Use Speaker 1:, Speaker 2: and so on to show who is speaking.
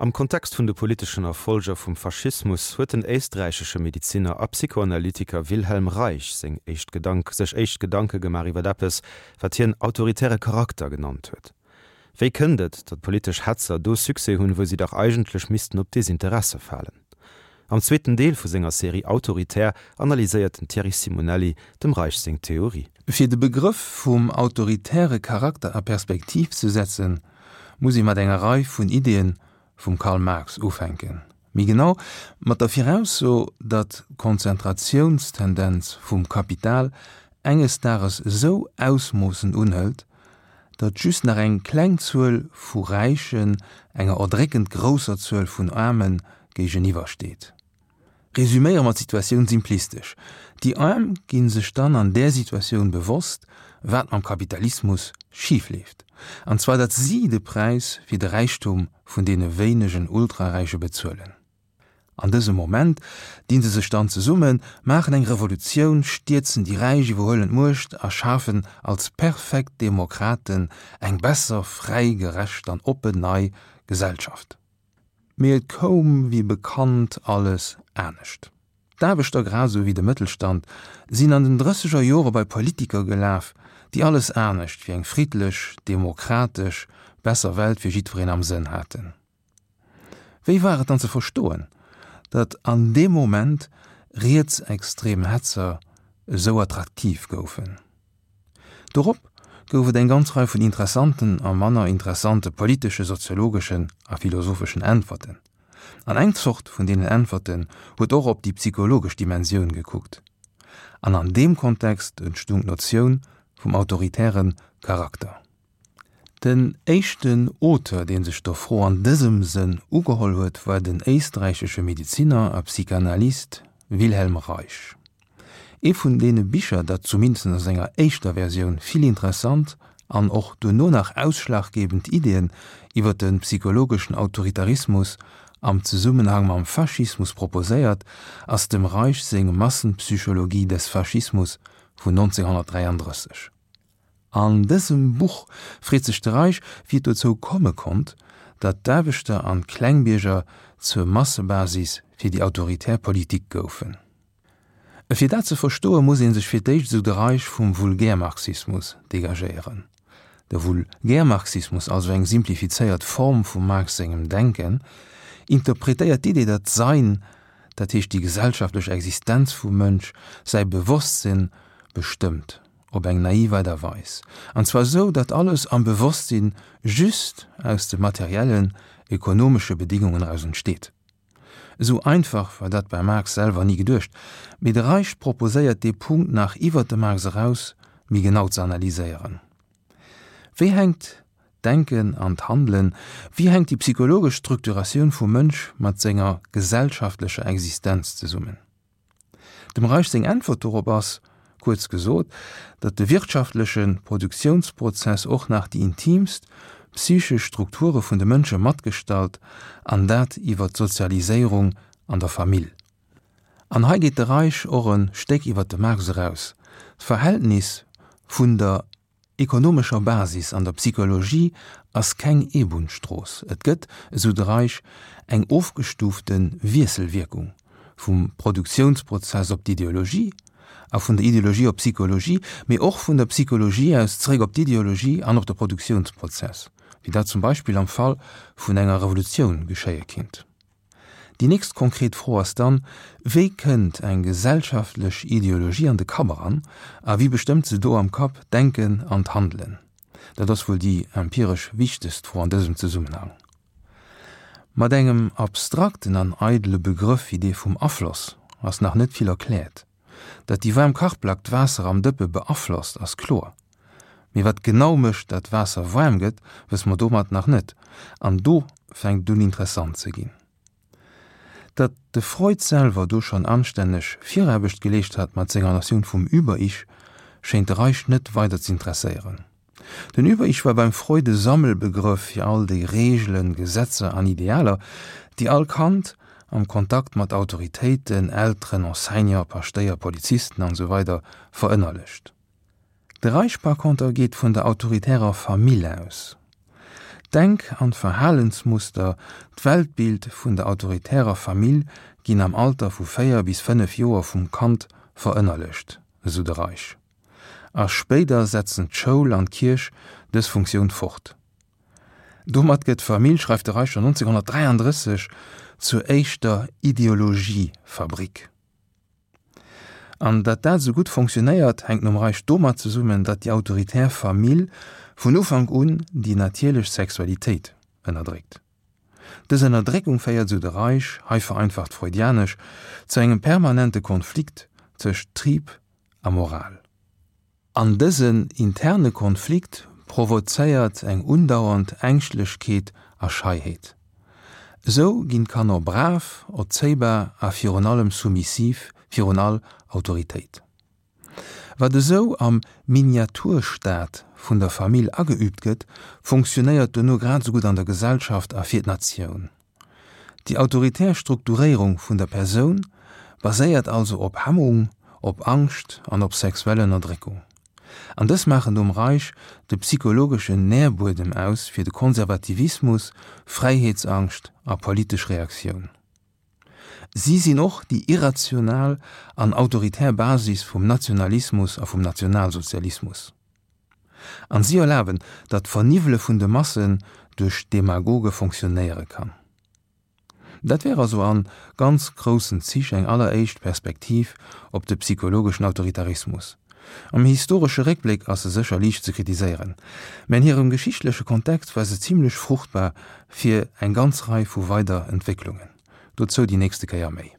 Speaker 1: Am Kontext vun de politeschen Erfolger vum Faschismus huet den éisträichesche Mediziner a Psychoanalytiker Wilhelm Reich seng éischt Gedank sech éischt Gedanke gemaach iwwer eppes, wat hien autoritäre Charakter genannt huet. Wéi kënnt et, datt politesch Hetzer do Succès hunn, wou si dach eigentlech missten op Desinteresse falen? Am zweeten Deel vu senger Serie Autoritär analyséiert den Thierry Simonelli dem Reich seng Theorie.
Speaker 2: Fir de Begrëff vum autoritäre Charakter a Perspektiv ze setzen, muss ee mat enger Rei vun Ideeën vum Karl Marx ufänken. Méi genau mat der Virausso, datt d'Konzentratiounstendenz vum Kapital enges Dages esou Ausmoossen unhëlt, datt just nach eng kleng Zuel vu Räichen enger erdréckend grousser Zuel vun Aarme géigeniwwer steet. Resüméiere mer d'Situatioun simplistesch, Déi Aarm gi sech dann an där Situatioun bewosst, wat mam Kapitalismus schif leeft, an zwar datt si de Präis fir de Räichtum vun deene wéinegen Ultraräiche bezuelen. An dësem Moment dinn se sech dann zesummen, maachen eng Revolutioun, stierzen déi Räich, iwwerhuelen d'Muecht a schafen als perfekt Demokraten eng besser, fräi, gerecht an oppen nei Gesellschaft. Mee et koum wéi bekannt alles anescht. D'Aarbechter grad esou wéi de Mëttelstand sinn an den drësseger Jore bei Politiker gelaf, déi alles anescht wéi eng friddlech, demokratesch, besser Welt fir jiddwereen am Sënn haten. Wéi war et dann ze verstoen, datt an deem Moment rietsextrem Hetzer esou attraktiv goufen? Dorop gouf et eng ganz Rei vun interessanten a manner interessante politesche, soziologeschen a philosopheschen Äntwerten. An eng Zort vun deenen Äntwerten huet och op déi psychologesch Dimensioun gekuckt. An an deem Kontext entstung d'Notioun vum autoritäre Charakter. Den éischten Auteur, dee sech der Fro an dësem Sënn ugeholl huet, war den éisträichesche Medeziner a Psychanalyst Wilhelm Reich. Ee vun deene Bicher, dat zumindest a senger éischter Versioun vill interessant an och duerno nach ausschlaggebend Ideeën iwwer de psychologeschen Autoritarismus am Zesummenhang mam Faschismus proposéiert, ass dem Reich seng Massenpsychologie des Faschismus vun 1933. An dësem Buch freet sech de Reich, wéi et dozou komme konnt, datt d'Aarbechter an d'Klengbierger zur Massebasis fir déi autoritär Politik goufen. Fir dat ze verstoe muss ee sech fir d'éischt, esou de Reich, vum Vulgärmarxismus degagéieren. De Vulgärmarxismus, also eng simplifizéiert Form vum Marx sengem Denken, interpretéiert d'Idee, datt d'Sein, dat heescht déi gesellschaftlech Existenz vum Mënsch, säi Bewosstsinn bestëmmt. Op eng naiv Aart a Weis, an zwar esou, datt alles am Bewosstsinn just aus de materiellen, ekonomesche Bedingungen eraus entsteet. Esou einfach war dat beim Marx selwer ni geduecht, mee de Reich proposéiert dee Punkt nach iwwert de Marx eraus méi genau ze analyséieren. Wéi hänkt d'Denken an d'Handelen, wéi hänkt déi psychologesch Structuratioun vum Mënsch mat senger gesellschaftlecher Existenz zesummen? Dem Reich seng Äntwert dorop ass, kuerz gesot, datt de wirtschaftleche Produktiounsprozess och nach déi intiimst psychesch Strukture vun de Mënsche matgestalt, an dat iwwer d'Sozialiséierung an der Famill. An hei geet de Reich och e Stéck iwwer de Marx eraus, D'Verhältnis vun der ekonomescher Basis an der Psychologie ass keng Eebunnsstrooss. Et gëtt, esou de Reich, eng ofgestuufte Wiesselwierkung vum Produktiounsprozess op d'Ideologie a vun der Ideologie op d'Psychologie, mee och vun der Psychologie aus zeréck op d'Ideologie an op de Produktiounsprozess, wéi dat zum Beispill am Fall vun enger Revolutioun geschéie kinnt. Déi nächst konkret Fro ass dann, Wéi kënnt eng gesellschaftlech Ideologie an de Kapp eran a wie bestëmmt se do am Kapp, d'Denken an d'Handelen? Dat ass wuel déi empiresch wichtegst Fro an dësem Zesummenhang. Mat engem abstrakten an eidele Begrëff wéi dee vum Afloss ass nach net vill erkläert. Datt déi waarm Kachplack d'Waasser am Dëppe beaflosst, ass kloer. Mee wat genau mécht, datt d'Waasser waarm gëtt, wësse mer domat nach net. An do fänkt et un interessant ze ginn. Datt de Freud selwer do schonn anstänneg Viraarbecht geleescht hat mat senger Notioun vum Über-Ich, schéint de Reich net weider z'interesséieren. Den Über-Ich war beim Freud e Sammelbegrëff fir all déi Reegelen, Gesetzer an Idealer, déi all Kand am Kontakt mat Autoritéiten, Elteren, Enseignant, Paschtéier, Polizisten an esou weider verënnerlecht. De Reich par conter geet vun der autoritärer Famill aus. D'Denk an d'Verhalensmuster, d'Weltbild vun der autoritärer Famill ginn am Alter vu 4 bis 5 Joer vum Kand verënnerlecht, esou de Reich. A spéider setzen d'Schoul an d'Kierch dës Funktioun fort. Domat gëtt d'Famill, schreift de Reich schonn 1933, zur éischter Ideologiefabrik. An datt dat esou gutt fonctionnéiert, hänkt nom Reich domat zesummen, datt déi autoritär Famill vun Ufank un déi natierlech Sexualitéit ënnerdréckt. Dës Ënnerdréckung féiert, esou de Reich, hei vereinfacht freudianesch, zu engem permanente Konflikt tëscht Trieb a Moral. An dësen interne Konflikt provozéiert eng undauernd Ängschtlechkeet a Scheiheet. Esou ginn d'Kanner brav, erzéibar a virun allem soumissiv virun all Autoritéit. Wat esou am Miniaturstaat vun der Famill ageüübt gëtt, funktionéiert dono grad esou gutt an der Gesellschaft a fir d'Natioun. Déi autoritär Strukturéierung vun der Persoun baséiert also op Hemmung, op Angscht an op sexuell Ënnerdréckung. An dës maachen nom Reich de psychologeschen Nährbuedem aus fir de Konservativismus, Fräiheetsangscht a politesch Reaktioun. Si sinn och déi irrational an autoritär Basis vum Nationalismus a vum Nationalsozialismus. An si erlaben, datt d'Verniwwele vun de Massen duerch Demagoge fonctionnéiere kann. Dat wär also an ganz groussen Zich eng alleréischt Perspektiv op de psychologeschen Autoritarismus. Am historesche Réckbléck ass se sécher liicht ze kritiséieren, mä an hirem geschichtleche Kontext war se zimlech fruchtbar fir eng ganz Rei vu weider Entwécklungen. Dozou déi nächste Kéier méi.